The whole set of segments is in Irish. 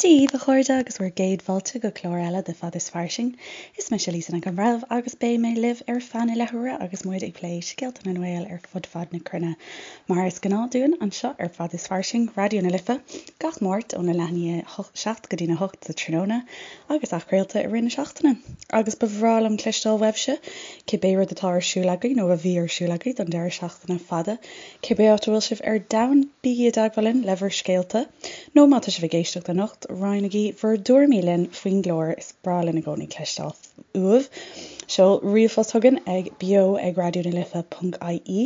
Dia dhaoibh, a chairde, agus bhur gcéad fáilte go clár eile de Fad is Fairsing. Is mise Lisa Nic an Bhreithimh agus beidh mé libh ar feadh na leathuaire agus muid ag plé scéalta na nGael ar fud fad na cruinne. Mar is gnáth dúinn anseo ar Fad is Fairsing, Raidió na Life, gach Máirt óna leath i ndiaidh 7 go dtína 8 sa tráthnóna agus athchraolta i rith na seachtaine. Agus ba bhreá liom cloisteáil uaibhse, cibé rud atá ar siúl agaibh nó a bhí ar siúl agaibh don deireadh seachtaine fada. Cibé áit a bhfuil sibh ar domhan, bígí i dteagmháil linn le bhur scéalta, nó má tá sibh ag éisteacht anocht, roinnigí bhur dtuairimí linn faoin gclár, is breá linn i gcónaí cloisteáil uaibh. Seol ríomhphost chugainn ag beo ag raidionalife.ie,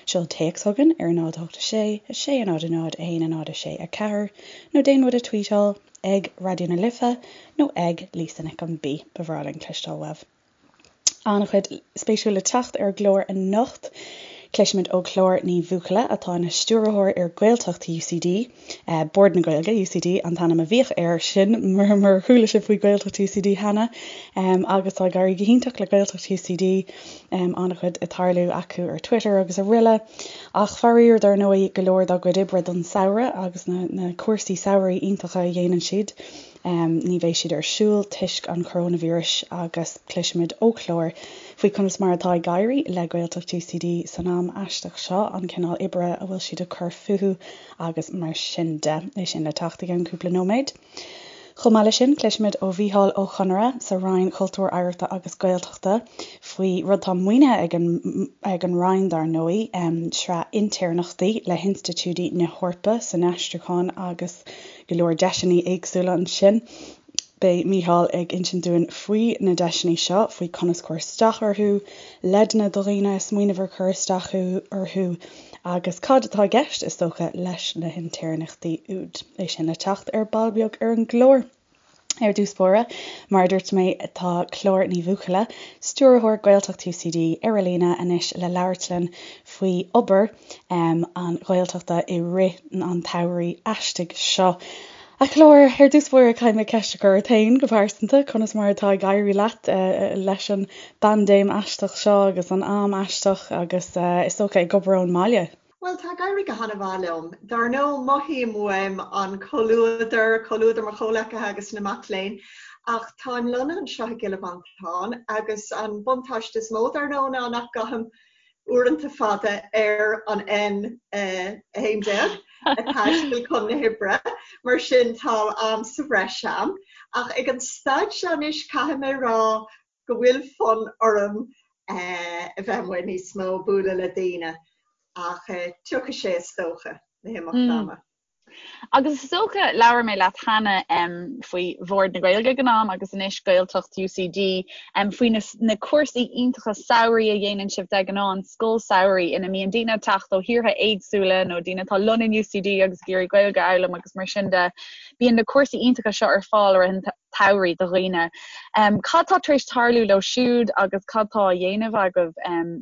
seol téacs chugainn ar 0 8 6 6 0 0 1 0 6 4, nó déan muid a tweetáil ag Raidió na Life nó ag Lisa Nic an B. Ba bhreá linn cloisteáil uaibh. An-chuid spéisiúil le teacht ar an gclár anocht. Cloisfimid ó Chlár Ní Bhuachalla, atá ina stiúrthóir ar Ghaeltacht UCD, Bord na Gaeilge, UCD an t-ainm a bhíodh air sin murar chuala sibh faoi Ghaeltacht UCD cheana, agus tá ag éirí go hiontach le Gaeltacht UCD, an-chuid ag tarlú acu ar Twitter agus araile. Ach faraor, dar ndóigh, go leor dá gcuid oibre don samhradh agus na cúrsaí samhraidh iontacha a dhéanann siad, Ní bheidh siad ar siúl toisc an choróinvíris agus cloisfimid ó Chlár faoi conas mar atá ag éirí le Gaeltacht UCD san am aisteach seo, an cineál oibre a bhfuil siad ag cur fúthu agus mar sin de. É sin le teacht i gceann cúpla nóiméad. Chomh maith leis sin, cloisfimid ó Mhícheál Ó Conaire sa Roinn Cultúir, Oidhreachta agus Gaeltachta faoi rud atá maoinithe ag an ag an Roinn dar ndóigh, sraith intéirneachtaí le hinstitiúidí na hEorpa san aistriúchán agus go leor deiseanna éagsúla ansin. Beidh Mícheál ag insint dúinn faoi na deiseanna seo, faoi conas cur isteach orthu, leideanna do dhaoine ag smaoineamh ar cur isteach orthu agus cad atá i gceist, is dócha, leis na hintéirneachtaí úd. É sin le teacht ar ball beag ar an gclár. Ar dtús báire, mar a dúirt mé, tá Clár Ní Bhuachalla, Stiúrthóir Gaeltacht UCD, ar an líne anois le labhairt linn faoi obair an Ghaeltachta i rith an tsamhraidh aistigh seo. A Chlár, ar dtús báire caithfidh mé ceist a chur ort féin go pearsanta, conas mar atá ag éirí leat leis an bpaindéim aisteach seo agus an am aisteach agus is dócha ag obair ón mbaile? Bhuel, tá ag éirí go han-mhaith liom. Dar ndóigh, mothaím uaim an comhluadar, comhluadar mo chomhleacaithe agus na mac léinn, ach táim lonnaithe anseo i gCill Mhantáin agus an buntáiste is mó, dar ndóigh, ná nach gcaithim uaireanta fada ar an N11 ag taisteal chun na hoibre, mar sin tá am sa bhreis a'm. Ach ag an staid seo anois, caithfidh mé a rá go bhfuil fonn orm a bheith amuigh níos mó, bualadh le daoine, ach tiocfaidh sé is dócha, le himeacht ama. Agus is dócha, labhair mé leat cheana faoi Bhord na Gaeilge ag an am agus anois Gaeltacht UCD, faoi na cúrsaí iontacha samhraidh a dhéanann sibh de ghnáth, an scoil samhraidh ina mbíonn daoine ag teacht ó thíortha éagsúla nó daoine atá lonnaithe in UCD agus ag iarraidh Gaeilge a fhoghlaim agus mar sin de. Bíonn na cúrsaí iontacha seo ar fáil i rith an tsamhraidh do dhaoine. Cad tá tar éis tarlú leo siúd agus cad tá á dhéanamh agaibh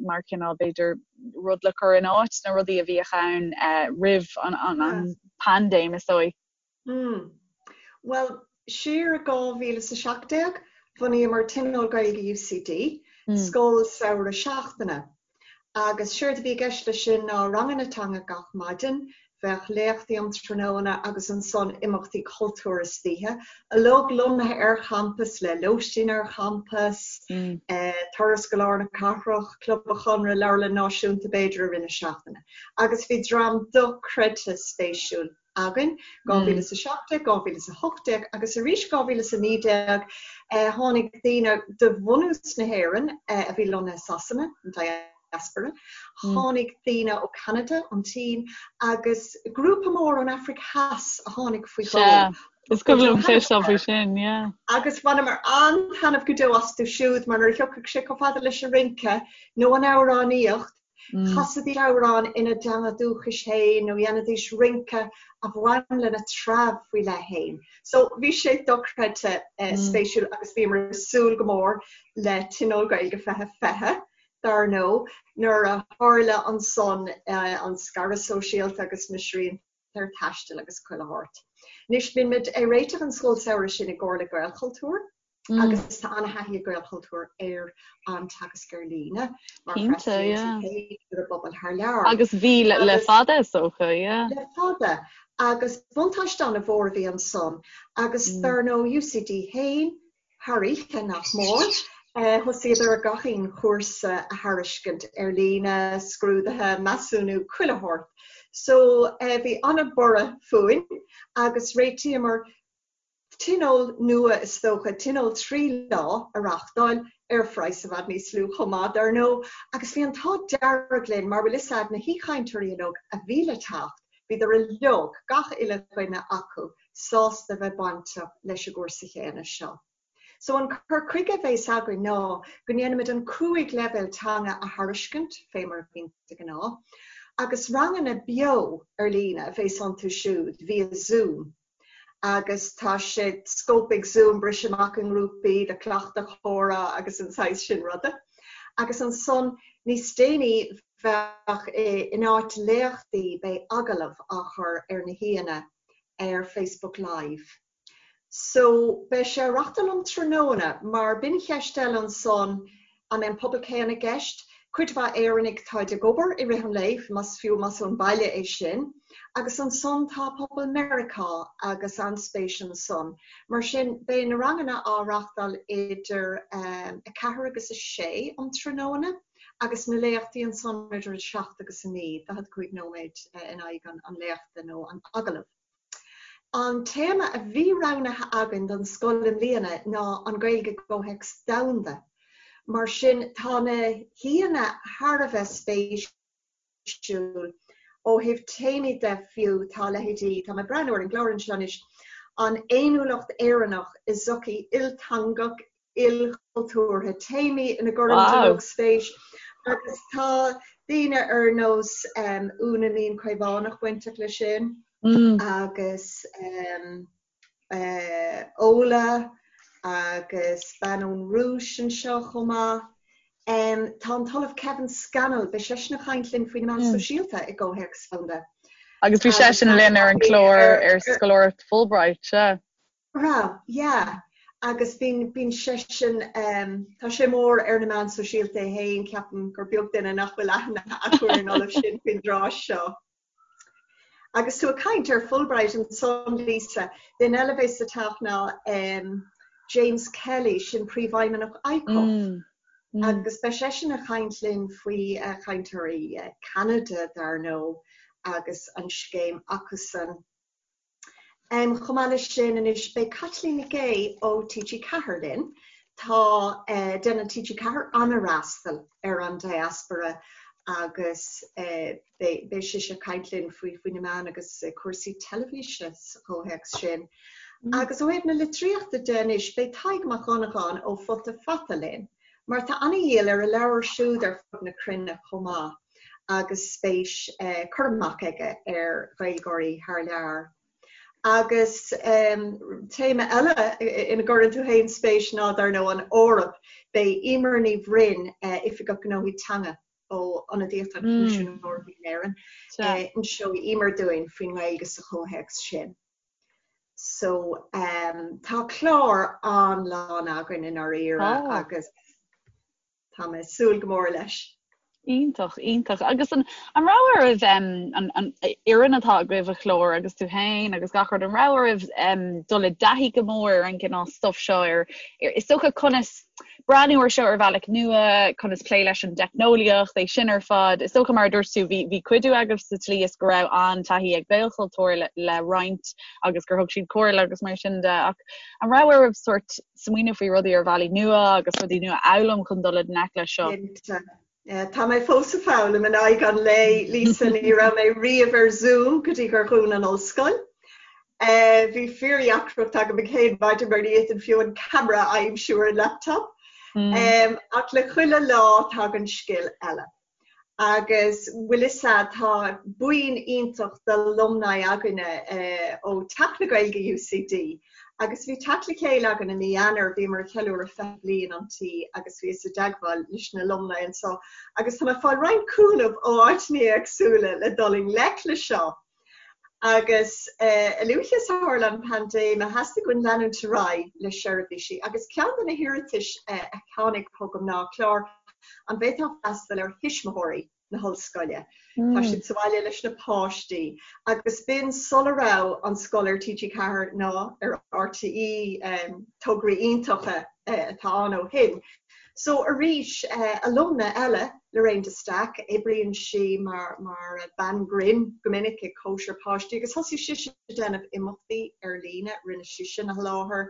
mar chineál, b'fhéidir, rud le cur in áit na rudaí a bhíodh ann roimh an paindéim, is dóigh? Bhuel, siar i 2017, bhunaíomar Tionól Gaeilge UCD, scoil samhraidh seachtaine. Agus séard a bhí i gceist leis sin ná ranganna teanga gach maidin, bheadh léachtaí um tráthnóna agus ansan imeachtaí cultúir istoíche, uilig lonnaithe ar champas le lóistín ar champas, turas go lár na cathrach, Club an Chonradh, Leabharlann Náisiúnta b'fhéidir i rith na seachtaine. Agus bhí dream dochreidte spéisiúil againn, 2017, 2018 agus arís 2019 tháinig daoine de bhunús na hÉireann a bhí lonnaithe i Sasana, an diaspora, tháinig daoine ó Ceanada, an tSín agus grúpa mór ón Afraic Theas a tháinig faoi dhó. Is cuimhin liom cloisteáil faoi sin, yeah. Agus bhaineamar an-taitneamh go deo astu siúd mar nuair a thiocfadh sé chomh fada leis an rince nó an amhránaíocht, Chasaidís amhrán ina dteanga dúchais féin nó dhéanaidís rince a bhain lena treabh faoi leith féin. So bhí sé dochreidte spéisiúil agus bhíomar ag súil go mór le Tionól Gaeilge 2020, dar ndóigh, nuair a tharla ansan an scaradh sóisialta agus na srianta ar taisteal agus chuile shórt. Anois, bíonn muid ag réiteach an scoil samhraidh sin i gcomhar le Gaelchultúr agus tá an-thaithí ag Gaelchultúr ar an teagasc ar líne mar freastalaíonn siad ar an bpobal thar lear. Agus bhí le fada is dócha, yeah. Le fada. Agus buntáiste an-mhór a bhí ansan agus dar ndóigh UCD féin, thar oíche nach mór, thosaíodar ar gach aon chúrsa a thairiscint ar líne, scrúduithe, measúnú, chuile shórt. So bhí an-bhorradh fúinn agus réitíomar tionól nua is dócha, tionól 3 lá a reáchtáil ar phraghas i bhfad níos lú chomh maith, dar ndóigh, agus bhí an t-ádh dearg linn mar bhfuil fhios a'd na haoichainteoirí uilig a bhí le teacht, bhíodar uilig, gach uile dhuine acu, sásta bheith bainteach leis an gcúrsa chéanna seo. So an cur chuige a bheas againn ná go ndéanfaimid an 5 leibhéal teanga a thairiscint, fé mar a bhíonn de ghnáth, agus ranganna beo ar líne a bheas iontu siúd via Zoom. Agus tá sé scóip ag Zoom briseadh amach i ngrúpaí le cleachtadh comhrá agus an saghas sin ruda. Agus ansan níos déanaí bheadh, in áit léachtaí, beidh agallamh á chur ar na haíonna ar Facebook Live. So, beidh sé á reachtáil um tráthnóna, mar b'in cheist eile ansan, an mbeidh an pobal céanna i gceist? Cuid mhaith Éireannaigh táid ag obair i rith an lae, más fiú más ón baile é sin, agus ansan tá pobal Meiriceá agus an-spéis ansan. Mar sin, beidh na ranganna á reachtáil idir 4 agus 6 um tráthnóna agus na léachtaí ansan idir 7 agus 9, 45 nóiméad in aghaidh an léachta nó an agallaimh. An téama a bhí roghnaithe againn don scoil i mbliana ná an Ghaeilge i gcomhthéacs domhanda. Mar sin, tá na haíonna thar a bheith spéisiúil ó thaobh téamaí de fiú, tá leithéidí, tá mé ag breathnú ar an gclár anseo anois, an fhéiniúlacht Éireannach i sochaí ilteangach, ilchultúrtha, téamaí ina gcuirimid uilig spéis agus tá daoine ar nós Úna Mín Caomhánach bainteach leis sin agus Ola agus bean ón Rúis anseo chomh maith. Tá an tOllamh Kevin Scannell, beidh seisean ag caint linn faoi na meáin sóisialta i gcomhthéacs domhanda. Agus bhí seisean linn ar an gclár ar scoláireacht Fulbright, sea. Raibh, yeah. Agus bíonn, bíonn seisean, tá sé mór ar na meáin sóisialta é féin, ceapaim gur beag duine nach bhfuil aithne acu ar an ollamh sin faoin dtráth seo. Agus tú ag caint ar Fulbright ansan, Lisa, duine eile a bheas ag teacht ná James Kelly, sin príomhfheidhmeannach ICUF. Agus beidh seisean ag caint linn faoi chainteoirí Ceanada, dar ndóigh, agus an scéim acusan. Chomh maith leis sin anois beidh Caitlín Nic Aoidh ó TG4 linn. Tá, déanann TG4 an-fhreastal ar an diaspora agus beidh sise ag caint linn faoi faoi na meáin agus cúrsaí teilifíse sa chomhthéacs sin. Agus ó thaobh na litríochta de anois beidh Tadhg Mac Dhonnagáin ó Futa Fata linn mar tá an-dhíol ar a leabhar siúd ar fud na cruinne chomh maith. agus spéis cur amach aige ar Ghaeilgeoirí thar lear. Agus téama eile ina gcuireann tú féin spéis ná, dar ndóigh, an Eoraip. Beidh Emer Ní Bhroin, Oifigeach Gnóthaí Teanga ó Ionadaíocht an Choimisiúin Eorpaigh in Éirinn, inseoidh Emer dúinn faoin nGaeilge sa chomhthéacs sin. So tá clár an-lán againn i ndáiríre agus. Tá mé ag súil go mór leis. Iontach, iontach. Agus an an raibh oraibh an an fhoireann atá agaibh a Chlár agus tú féin agus gach rud, an raibh oraibh dul i dtaithí go mór ar an gcineál stuff seo ar is dócha conas breathnú ar seo ar bhealach nua, conas plé leis an dteicneolaíocht, é sin ar fad. Is dócha mar a dúirt tú bhí bhí cuidiú agaibh sa tslí is go raibh an-taithí ag Gaelchultúr le le roinnt agus gur thug siad comhairle agus mar sin de ach an raibh oraibh sórt smaoineamh faoi rudaí ar bhealaí nua agus rudaí nua a fhoghlaim chun dul i ngleic leis seo. Cinnte. Tá mé fós ag foghlaim in aghaidh an lae, Lisa, ní raibh mé riamh ar Zoom go dtí gur dhún an ollscoil. Bhí fíordheacracht agam an chéad maidin mar ní fhéadfainn fiú an camera a aimsiú ar an laptop. Ach le chuile lá tagann scil eile. Agus bhfuil fhios a'd, tá buíon iontach d'alumni againne ó Teach na Gaeilge UCD agus bhí teacht le chéile againn i mí Eanáir, bhíomar ag ceiliúradh 20 bliain an tí agus bhíos i dteagmháil leis na alumni anseo agus tá mé ag fáil roinnt cúnamh ó áiteanna éagsúla le dul i ngleic le seo. Agus a luaithe is a tharla an paindéim, theastaigh uainn leanúint ar aghaidh le seirbhísí agus ceann de na hiarratais a tháinig chugam ná, Clár, an bhféadfá freastal ar thuismitheoirí? Na hollscoile. Tá siad sa bhaile leis na páistí agus b'in sula raibh an scoil ar TG4 ná ar RTÉ, tograí iontacha atá ann ó shin. So arís, alumna eile, Lorraine de Staic, oibríonn sí mar mar bean grinn go minic ag cóisir páistí agus thosaigh sise ag déanamh imeachtaí ar líne, rinne sí sin a sholáthar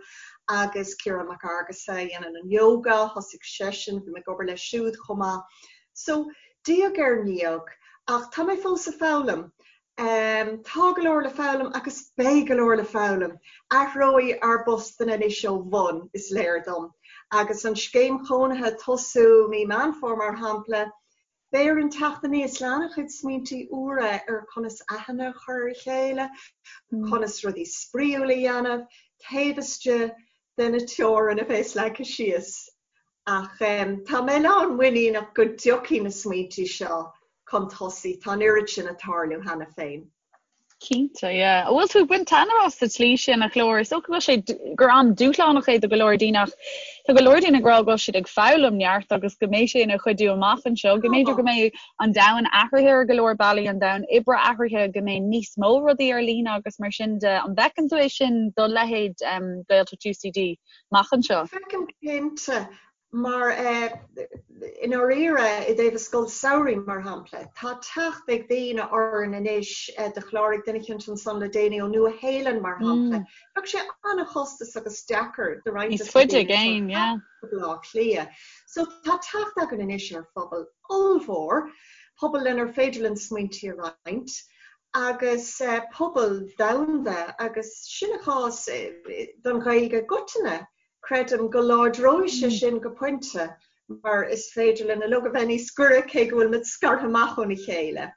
agus Ciarán Mac Fhearghusa a dhéanann an yoga, thosaigh seisean, bhí mé ag obair leis siúd chomh maith. So, diaidh ar ndiaidh, ach tá mé fós ag foghlaim. Tá go leor le foghlaim agus beidh go leor le foghlaim. Athróidh ár bpostanna anois ó bhun, is léir dom. Agus an scéim chónaithe ag tosú mí Meán Fómhair, mar shampla, beidh orainn teacht aníos le an-chuid smaointí úra ar conas aithne a chur ar a chéile, conas rudaí spraíúla a dhéanamh taobh istigh de na teorainn a bheas leagtha síos. Ach tá mé lán muiníneach go dtiocfaidh na smaointí seo chun tosaigh, tá an oiread sin ag tarlú cheana féin. Cinnte, yeah. An bhfuil tú ag baint taitneamh as sa tslí sin, a Chlár? Is dócha go bhfuil sé, gur am dúshlánach é do go leor daoine ach tá go leor daoine ag rá go bhfuil siad ag foghlaim neart agus go mbeidh sé ina chuidiú amach anseo, go mb'fhéidir go mbeidh an domhan athraithe ar go leor bealaí, an domhan oibre athraithe, go mbeidh níos mó rudaí ar líne agus mar sin de. An bhfeiceann tú é sin do leithéid Gaeltacht UCD? amach anseo. Feicim cinnte, mar i ndáiríre, i dtaobh an scoil samhraidh, mar shampla, tá teacht ag daoine orainn anois, do chláraigh duine eicínt ansan le déanaí ó Nua Shéalainn, mar shampla. Bheadh sé an-chostasach agus deacair do roinnt des na daoine seo teacht go Baile Átha Cliath. So tá teacht againn anois ar phobal ollmhór, pobal lenar féidir linn smaointí a roinnt, agus pobal domhanda, agus sin an cás don Ghaeilge i gcoitinne. Creidim go láidreoidh sé sin go pointe mar is féidir linn uilig a bheith níos gaire cé go bhfuil muid scartha amach óna chéile.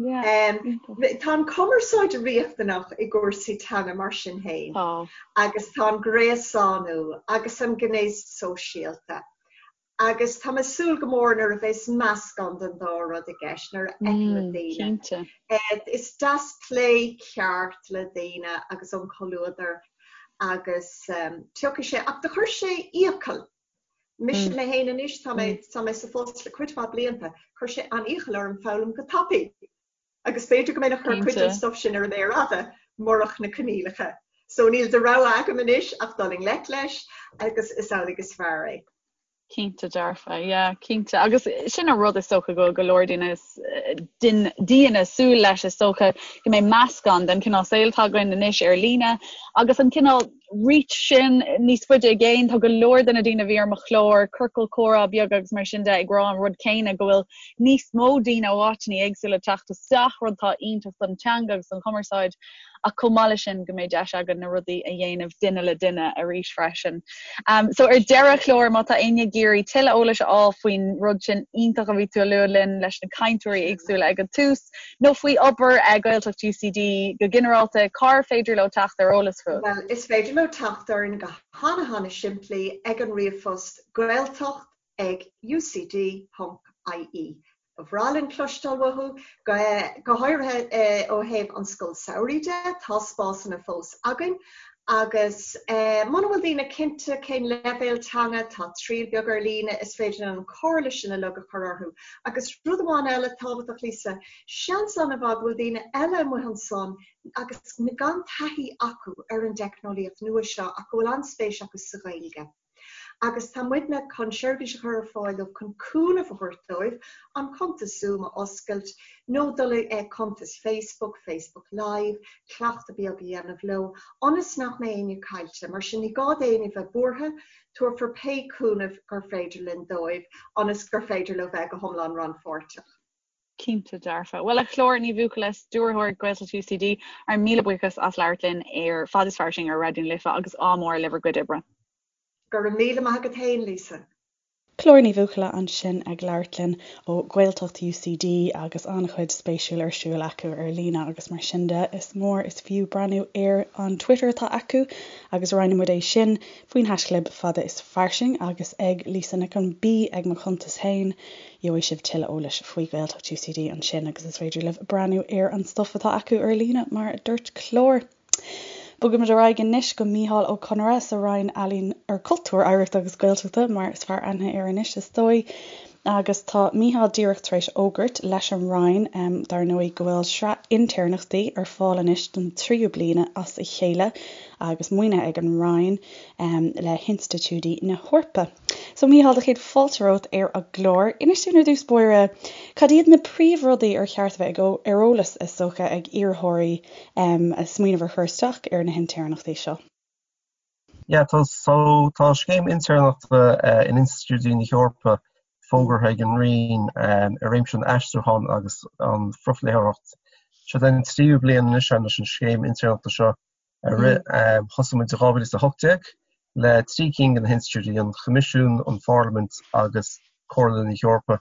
Tá an cumarsáid riachtanach i gcúrsaí teanga mar sin féin agus tá an gréasánú agus an gné sóisialta Agus tá mé ag súil go mór nuair a bheas meascán den dá rud i gceist, nuair a fheicimid daoine. Is deas plé ceart le daoine agus an comhluadar agus tiocfaidh sé, ach do chuir sé iachall, mise mé féin anois, tá mé, tá mé sa phost le cuid mhaith blianta, chuir sé an-iachall orm foghlaim go tapaidh. Agus b'fhéidir go mbeinn ag cur cuid den stuff sin ar an méar fhada murach na coinníollacha. So níl de rogha agam anois ach dul i ngleic leis agus is amhlaidh is fearr é. Cinnte dearfa, yeah, cinnte. Agus sin an rud is dócha go bhfuil go leor daoine daoine súil leis is dócha go mbeidh meascán den chineál saoil atá againn anois ar líne agus an cineál reach sin níos faide i gcéin. Tá go leor de na daoine a bhí ar mo chlár, ciorcal comhrá beag agus mar sin de, ag rá an rud céanna, go bhfuil níos mó daoine ó áiteanna éagsúla ag teacht isteach, rud atá iontach don teanga agus don chumarsáid, ach chomh maith leis sin go mbeidh deis againn na rudaí a dhéanamh duine le duine arís freisin. So ar deireadh, a Chlár, má tá éinne ag iarraidh tuilleadh eolais a fháil faoin rud sin iontach a bhí tú a lua linn leis na cainteoirí éagsúla ag an tús, nó faoi obair Gaeltacht UCD go ginearálta, cár féidir leo teacht ar eolas fút? Bhuel, is féidir leo teacht orainn go hana-hana-simplí ag an ríomhphost gaeltacht ag ucd ponc ie. Ba bhreá linn cloisteáil uathu, go háirithe ó thaobh an scoil samhraidh de, tá spásanna fós againn agus muna bhfuil daoine cinnte cén leibhéal teanga, tá triail beag ar líne, is féidir linn an comhairle sin uilig a chur orthu. Agus rud amháin eile tábhachtach, Lisa, seans an-mhaith go bhfuil daoine eile amuigh ansan agus gan taithí acu ar an dteicneolaíocht nua seo ach go bhfuil an-spéis acu sa Ghaeilge. Agus tá muidne chun seirbhís a chur ar fáil dóibh chun cúnamh a thabhairt dóibh an cuntas Zoom a oscailt nó dul i cuntas Facebook, Facebook Live, cleachtadh beag a dhéanamh leo ionas nach mbeidh éinne caillte. Mar sin ní gá d'éinne bheith buartha, tabharfar pé cúnamh gur féidir linn dóibh ionas gur féidir leo bheith go hiomlán rannpháirteach. Cinnte dearfa. Bhuel, a Chlár Ní Bhuachalla, Stiúrthóir Gaeltacht UCD, ár míle buíochas as labhairt linn ar Fad is Fairsing ar Raidió na Life agus ádh mór le bhur gcuid oibre. Go raibh míle maith agat féin, Lisa. Clár Ní Bhuachalla ansin ag labhairt linn ó Ghaeltacht UCD agus an-chuid spéisiúil ar siúl acu ar líne agus mar sin de is mór is fiú breathnú ar an Twitter atá acu agus roinnfidh muid é sin faoin haischlib fada is fairsing agus ag Lisa Nic an B ag mo chuntas féin. Gheobhaidh sibh tuilleadh eolais faoi Ghaeltacht UCD ansin agus is féidir libh breathnú ar an stuif atá acu ar líne, mar a dúirt Clár. Bogaimid ar aghaidh anois go Mícheál Ó Conaire sa Roinn Ealaíon ar Cultúr, Oidhreachta agus Gaeltachta, mar is fearr aithne air anois, is dóigh. Agus tá Mícheál díreach tar éis fhógairt leis an Roinn, dar ndóigh, go bhfuil sraith intéirneachtaí ar fáil anois don tríú bliain as a chéile agus maoinithe ag an Roinn le hinstitiúidí na hEorpa. So Mícheál, do chéad fáilte romhat ar an gclár. Inis dúinn ar dtús báire, cad iad na príomhrudaí ar cheart a bheith ar eolas, is dócha, ag iarrthóirí ag smaoineamh ar chur isteach ar na hintéirneachtaí seo? Yeah, tá, so, tá scéim intéirneachta in institiúidí na hEorpa fógartha ag an Roinn i réimse an aistriúcháin agus an phrofléitheoireacht. Seo an tríú bliain anois leis an scéim intéirneachta seo a rith. Thosaigh muid i 2018 le 3 cinn de na hinstitiúidí, an Coimisiún, an Pharlaimint agus Comhairle na hEorpa.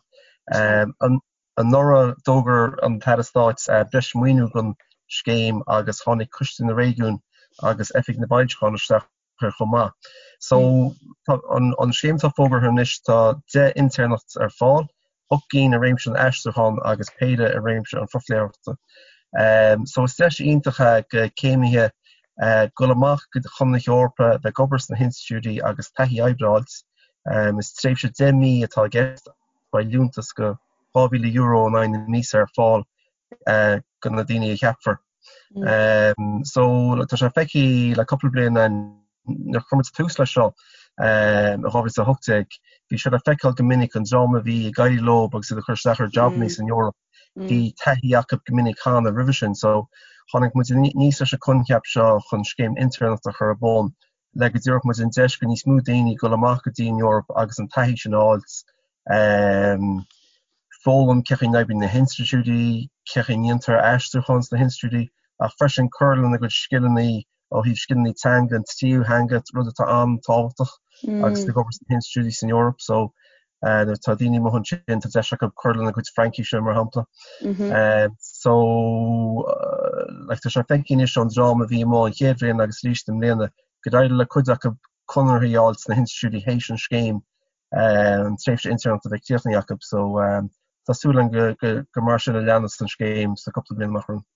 Anuraidh, d'fhógair an tAire Stáit breis maoiniú don scéim agus tháinig Coiste na Réigiún agus Oifig na bhFoilseachán isteach air chomh maith. So, tá an scéim atá fógartha anois, tá 10 intéirneacht ar fáil, 8 gcinn i réimse an aistriúcháin agus péire i réimse an phrofléitheoireachta. So, is deis iontach é go céimithe dul amach chun na hEorpa, bheith ag obair sna hinstitiúidí agus taithí oibre a fháilt. Is tréimhse 10 mí atá i gceist. Beidh liúntas go €2,000 in aghaidh na míosa ar fáil go na daoine a cheapfar. So tá sé feicthe le cúpla bliain nuair a chuir muid tús leis seo i 2018, bhí sé le feiceáil go minic an dream a bhí ag éirí leo agus iad ag cur isteach ar jabannaí san Eoraip, bhí taithí acu go minic cheana roimhe sin. So tháinig muid aníos leis an coincheap seo chun scéim intéirneachta a chur ar bun le go dtabharfadh muid an deis go níos mó daoine dul amach go dtí an Eoraip agus an taithí sin a fháilt, foghlaim cén chaoi a n-oibríonn na hinstitiúidí, cén chaoi a ndéantar aistriúchán sna hinstitiúidí, ach freisin cur lena gcuid scileanna ó thaobh scileanna teanga, an tríú theanga, rud atá an-tábhachtach agus ag obair sna hinstitiúidí san Eoraip. So, Nuair atá daoine amuigh ansin, tá deis acu cur lena gcuid Fraincíse, mar shampla. So, like, tá sé feicthe anois ón dream a bhí amuigh an chéad bhliain agus arís i mbliana, gur éirigh le cuid acu conarthaí a fháil sna hinstitiúidí théis an scéim, an tréimhse intéirneachta a bheith críochnaithe acu. So, tá súil againn gur mar sin a leanfas an scéim sna cúpla bliain amach romhainn.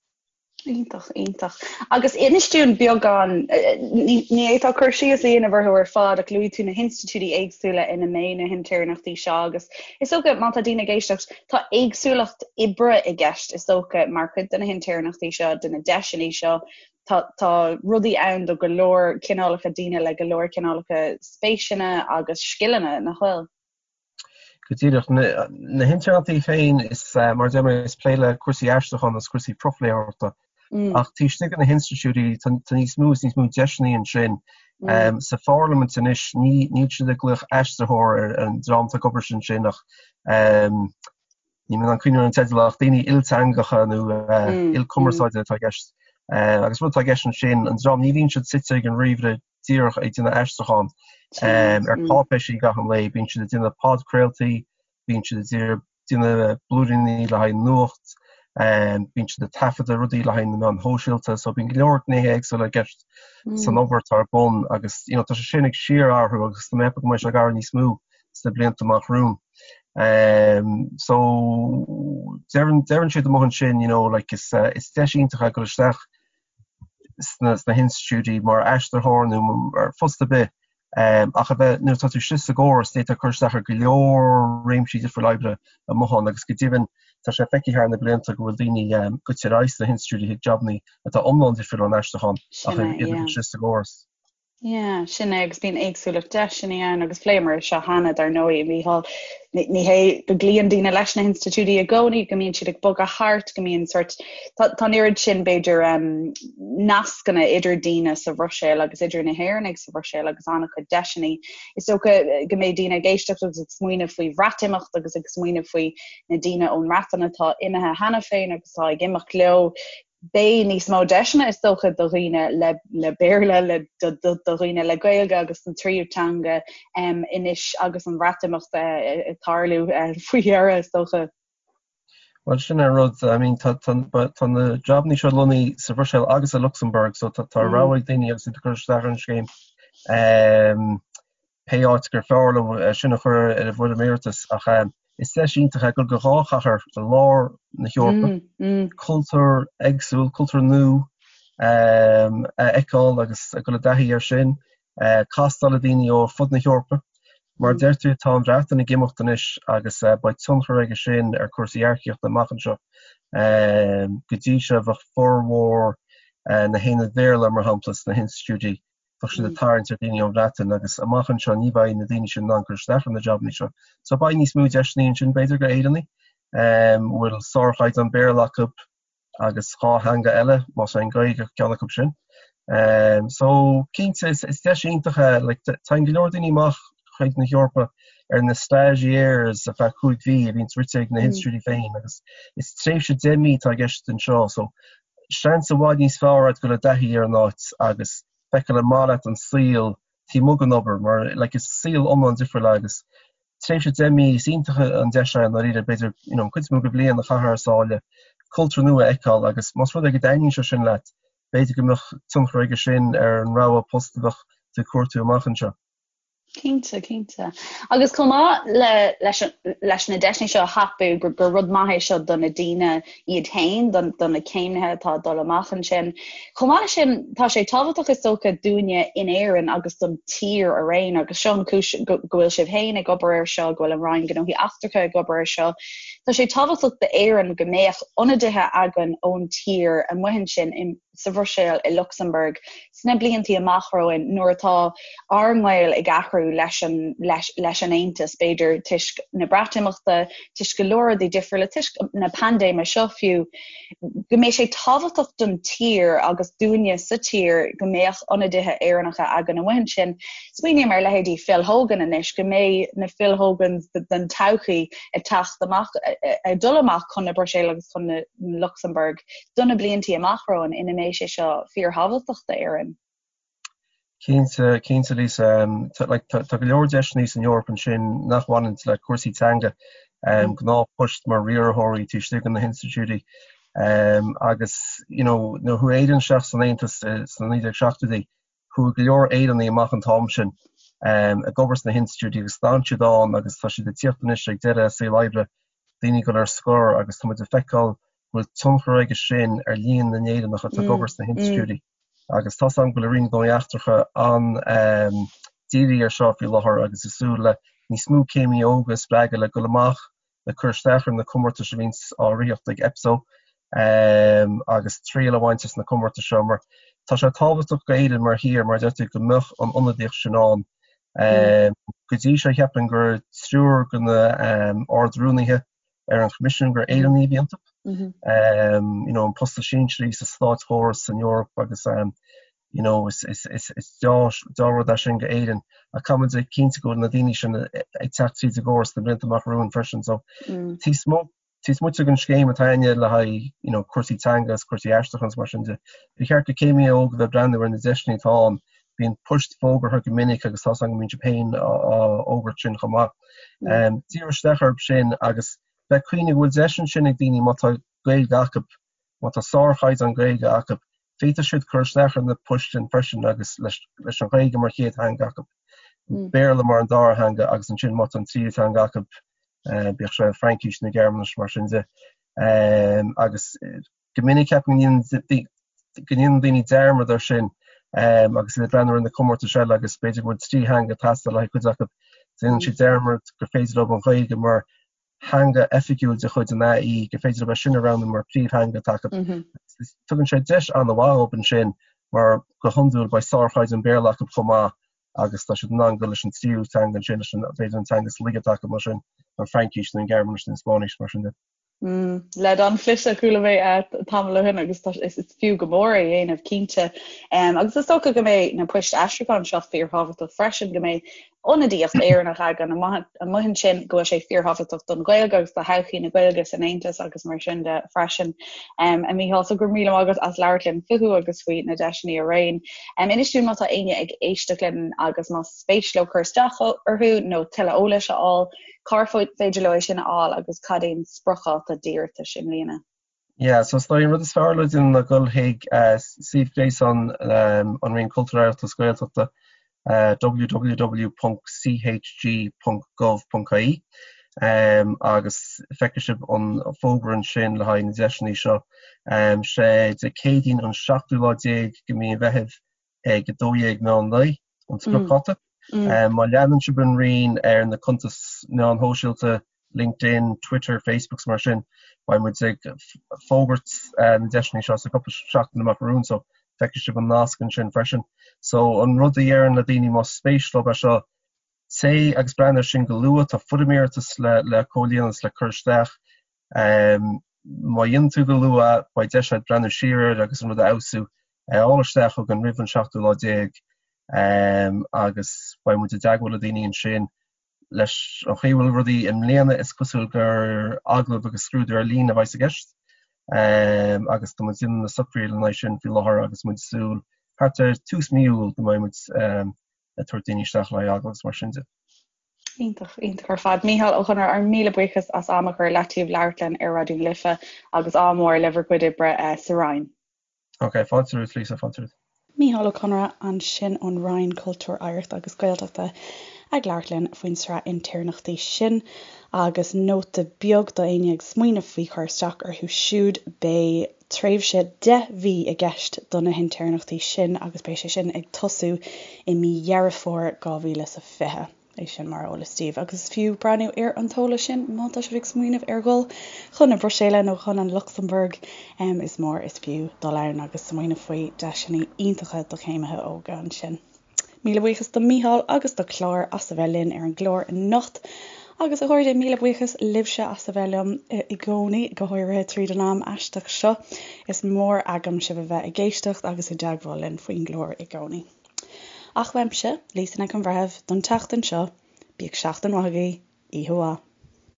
Iontach, iontach. Agus inis dúinn beagán, ní fhéadfá cur síos a dhéanamh orthu ar fad ach luaigh tú na hinstitiúidí éagsúla ina mbeidh na hintéirneachtaí seo agus is dócha má tá daoine ag éisteacht, tá éagsúlacht oibre i gceist is dócha mar chuid de na hintéirneachtaí seo, de na deiseanna seo. Tá, tá rudaí ann do go leor cineálacha daoine le go leor cineálacha spéiseanna agus scileanna, nach bhfuil? Go díreach. Na hintéirneachtaí féin, is mar a deir mé, is plé le cúrsaí aistriúcháin agus cúrsaí profléitheoireachta. Ach taobh istigh de na hinstitiúidí, tá níos mó is níos mó deiseanna ansin. Sa Pharlaimint anois, níl siad ag glaoch aistritheoir ar an dream atá ag obair ansin ach níl mé in ann cuimhneamh ar an teideal ach daoine ilteangacha nó ilchumarsáide atá i gceist. Agus rud atá i gceist ansin, an dream, ní bhíonn siad suite ag an ríomhaire díreach ag déanamh aistriúchán ar cáipéisí gach aon lae, bíonn siad ag déanamh podchraoltaí, bíonn siad ag déanamh blúiríní le haghaidh nuacht, bíonn siad ag taifeadadh rudaí le haghaidh na meáin shóisialta, so bíonn go leor gnéithe éagsúla i gceist san obair atá ar bun agus you know tá sé sin ag síorathrú agus tá mé ag ceapadh go mbeidh sé ag athrú níos mó sna blianta amach romhainn. So deireann deireann siad amuigh ansin you know like is is deis iontach é dul isteach sna hinstitiúidí mar aistritheoir nó ar phost ar bith ach a bheith, nuair atá tú istigh sa gcóras, d'fhéadfá cur isteach ar go leor réimsí difriúla oibre amuigh ann agus go deimhin tá sé feicthe thar na blianta go bhfuil daoine goite ar aghaidh sna hinstitiúidí chuig jabannaí atá iomlán difriúil ón aistriúchán ach iad istigh sa gcóras. Yeah, sin é agus bíonn éagsúlacht deiseanna ann agus phléamar é seo cheana dar ndóigh, a Mhícheáil. Ní hé go gcloíonn daoine leis na hinstitiúidí i gcónaí, go mbíonn siad ag bogadh thart, go mbíonn sort, tá an oiread sin b'fhéidir nascanna idir daoine sa Bhruiséil agus idir na hÉireannaigh sa Bhruiséil agus an-chuid deiseanna. Is dócha go mbeidh daoine ag éisteacht agus ag smaoineamh faoi Bhreatimeacht agus ag smaoineamh faoi na daoine ón mBreatain atá imithe cheana féin agus atá ag imeacht leo. Beidh níos mó deiseanna is dócha do dhaoine le le Béarla, le do do do dhaoine le Gaeilge agus an tríú teanga anois agus an Bhreatimeacht ag tarlú faoi dheireadh is dócha. Bhuel sin an rud, I mean tá tá tá na jabannaí seo lonnaithe sa Bhruiséil agus i Lucsamburg so tá tá rogha ag daoine agus iad ag cur isteach ar an scéim. Pé áit gur fearr leo é sin a chur ar a bhfoirm iarratais ach is deis iontach é dul go dhá chathair i lár na hEorpa, cultúr éagsúil, cultúr nua a fheiceáil agus a dhul i dtaithí air sin, castáil le daoine ó fud na hEorpa. Mar a deir tú, tá an Bhreatain ag imeacht anois agus beidh tionchar aige sin ar chúrsaí earcaíochta amach anseo. Go dtí seo bheadh formhór na haonaid Bhéarla, mar shampla, sna hinstitiúidí, bheadh siad ag tarraingt ar dhaoine ón Bhreatain agus amach anseo ní bheidh na daoine sin in ann cur isteach ar na jabanna seo. So beidh níos mó deiseanna ansin b'fhéidir go Éireannaigh a bhfuil sárchaighdeán Béarla acu agus 2 theanga eile, más é an Ghaeilge ceann acu sin. So cinnte is deis iontach é, like téann go leor daoine amach chuig na hEorpa ar na stagiaires ar feadh 5 mhí a bhíonns rite ag na hinstitiúidí féin agus is tréimhse 10 mí atá i gceist anseo so seans i bhfad níos fearr agat dul i dtaithí ar an áit agus feiceáil an maith leat an saol taobh amuigh den obair mar like is saol iomlán difriúil é agus tréimhse 10 mí is iontach an deis é i ndáiríre b'fhéidir you know an chuid is mó de bhliain a chaitheamh thar sáile, cultúr nua a fheiceáil agus más rud é go dtaitníonn sé sin leat b'fhéidir go mbeadh tionchar aige sin ar an rogha post a bheadh tú ag cuartú amach anseo. Cinnte, cinnte. Agus chomh maith le, leis, leis na deiseanna seo a thapú, gur, gur rud maith é seo do na daoine iad féin, do, do na céimnithe atá ag dul amach ansin. Chomh maith leis sin, tá sé tábhachtach is dócha dúinne in Éirinn agus don tír araon, agus seo an chúis go, go bhfuil sibh féin ag obair air seo, go bhfuil an Roinn Gnóthaí Eachtracha ag obair air seo. Tá sé tábhachtach d'Éirinn go mbeadh ionadaithe againn ón tír amuigh ansin i, sa Bhruiséil, i Lucsamburg, sna bliantaí amach romhainn nuair atá ár ngaol ag athrú leis an, leis, leis an Aontas, b'fhéidir toisc na Breatimeachta, toisc go leor rudaí difriúla, toisc na paindéime seo fiú, go mbeidh sé tábhachtach don tír agus dúinne sa tír go mbeadh ionadaithe Éireannacha againn amuigh ansin. Smaoiním ar leithéidí Phil Hogan anois, go mbeidh na Phil Hogans den todhchaí ag teacht amach, ag dul amach chun na Bruiséile agus chun na Lucsamburg. do na bliantaí amach romhainn ina mbeidh sé seo fíorthábhachtach d'Éirinn. Cinnte, cinnte Lisa. Tá like tá go leor deiseanna san Eoraip ansin nach bhaineann le cúrsaí teanga, gnáthphoist mar riarthóirí taobh istigh de na hinstitiúidí agus you know nuair a chuaigh Éirinn isteach san Aontas sna 1970idí Chuaigh go leor Éireannaigh amach an t-am sin ag obair sna hinstitiúidí agus d'fhan siad ann agus tá siad ag tíocht anois ag deireadh a saol oibre, daoine ag dul ar scor agus tá muid ag feiceáil go bhfuil tionchar aige sin ar líon na nÉireannach atá ag obair sna hinstitiúidí agus tá's agam go bhfuil an Roinn Gnóthaí Eachtracha an-dírithe ar seo faoi láthair agus ag súil le níos mó céimí óga a spreagadh le dul amach le cur isteach ar na comórtais a bhíonns á ritheacht ag EPSO agus triail a bhaint as na comórtais seo mar tá sé tábhachtach go Éirinn mar thír mar a deir tú go mbeadh an ionadaíocht sin ann. Go dtí seo cheapfainn gur triúr de na Ard-Rúnaithe ar an Choimisiún gur Éireannaigh a bhí iontu. You know, an post is sinsearaí sa státchóras san Eoraip agus you know, is deá-rud é sin go Éirinn ach caithfimid a chinntiú go bhfuil na daoine sin ag teacht tríd an gcóras sna blianta amach romhainn freisin. So taobh amuigh den scéim atá againne le haghaidh you know, cúrsaí teanga is cúrsaí aistriúcháin is mar sin de, ba cheart do céimithe óga bheith ag breathnú ar na deiseanna atá ann. Bíonn poist fógartha go minic agus tá's agam go mbíonn sibh féin á fhógairt sin chomh maith. Díriú isteach orthu sin agus bheith ag cuimhneamh go bhfuil deis ansin ag daoine má tá Gaeilge acu, má tá sárchaighdeán Gaeilge acu, féadfaidh siad cur isteach ar na poist sin freisin agus leis an Ghaeilge mar chéad theanga acu, Béarla mar an dara theanga agus ansin má tá an tríú teanga acu, bíodh sé Fraincis nó Gearmáinis mar sin de. Agus go minic ceapaim go ndéanann daoine dearmad air sin agus iad ag breathnú ar na comórtais eile agus b'fhéidir go bhfuil 3 theanga ag teastáil le haghaidh cuid acu. Déanann siad dearmad gur féidir leo an Ghaeilge mar theanga oifigiúil de chuid an AE, gur féidir leo é sin a roghnú mar phríomhtheanga atá acu. Tugann sé deis an-mhaith dóibh ansin mar go hiondúil beidh sárchaighdeán Béarla acu chomh maith agus tá siad in ann dul leis an tríú teanga ansin, leis an, b'fhéidir an teanga is laige atá acu mar sin, an Fraincis nó an Ghearmáinis nó an Spáinnis mar sin de. Leid an-chliste a chuala mé tamall ó shin agus tá is fiú go mór é a dhéanamh cinnte. Agus is dócha go mbeidh na poist aistriúcháin seo fíorthábhachtach freisin, go mbeidh ionadaíocht Éireannach againn amuigh ansin, go bhfuil sé fíorthábhachtach don Ghaeilge agus do thodhchaí na Gaeilge san Aontas agus mar sin de freisin. A Mhícheáil, so go raibh míle maith agat as labhairt linn fúthu agus faoi na deiseanna araon. Inis dúinn má tá éinne ag éisteacht linn agus más spéis leo cur isteach orthu nó tuilleadh eolais a fháil, cár féidir leo é sin a fháil agus cad é an spriocdháta d'iarratais i mbliana? Yeah, so is dóigh an rud is fearr le déanamh ná dul chuig suíomh gréasáin an Roinn Cultúir, Oidhreachta is Gaeltachta, www.chg.gov.ie, agus feicfidh sibh an fógra ansin le haghaidh na deiseanna seo. Sé Dé Céadaoin an seachtú lá déag de mhí an Mheithimh ag 12 meán lae an spriocdháta. Má leanann sibh an Roinn ar na cuntais meáin shóisialta, LinkedIn, Twitter, Facebook 's mar sin, beidh muid ag fógairt na deiseanna seo sa cúpla seachtain amach romhainn so feicfidh sibh an nasc ansin freisin. So an rud a déarfainn le daoine más spéis leo é seo, téigh agus breathnaigh air sin go luath, tá foirm iarratais le le comhlíonadh is le cur isteach. Má dhéanann tú go luath beidh deis agat breathnú siar air agus an rud a fheabhsú. É a fháil isteach chugainn roimh an seachtú lá déag agus beidh muid i dteagmháil le daoine ansin. Leis an chaoi a bhfuil rudaí i mbliana is cosúil gur agallamh agus scrúdú ar líne a bheas i gceist agus tá muid ag déanamh na socruithe lena aghaidh sin faoi láthair agus muid ag súil thart ar tús mí Iúil go mbeidh muid ag tabhairt daoine isteach le haghaidh agallamh agus mar sin de. Iontach, iontach ar fad. Mícheál Ó Conaire, ár míle buíochas as am a chur i leataobh labhairt linn ar Raidió na Life agus ádh mór le bhur gcuid oibre sa Roinn. Ok, fáilte romhat Lisa, fáilte romhat. Mícheál Ó Conaire ansin ón Roinn Cultúir, Oidhreachta agus Gaeltachta ag labhairt linn faoin sraith intéirneachtaí sin. Agus nóta beag do éinne ag smaoineamh faoi chur isteach orthu siúd, beidh tréimhse 10 mhí i gceist do na hintéirneachtaí sin agus beidh sé sin ag tosú i mí Dheireadh Fómhair 2020. É sin mar eolas daoibh agus is fiú breathnú ar an t-eolas sin má tá sibh ag smaoineamh ar dhul chun na Bruiséile nó chun an Lucsamburg. Is mór is fiú dul ann agus smaoineamh faoi deiseanna iontacha do chéimithe óga ansin. Míle buíochas do Mícheál agus do Chlár as a bheith linn ar an gclár anocht. Agus a chairde, míle buíochas libhse as a bheith liom i gcónaí, go háirithe tríd an am aisteach seo. Is mór agam sibh a bheith ag éisteacht agus i dteagmháil linn faoin gclár i gcónaí. Ach uaimse, Lisa Nic an Bhreithimh, don tseachtain seo, bíodh seachtain mhaith agaibh, oíche mhaith.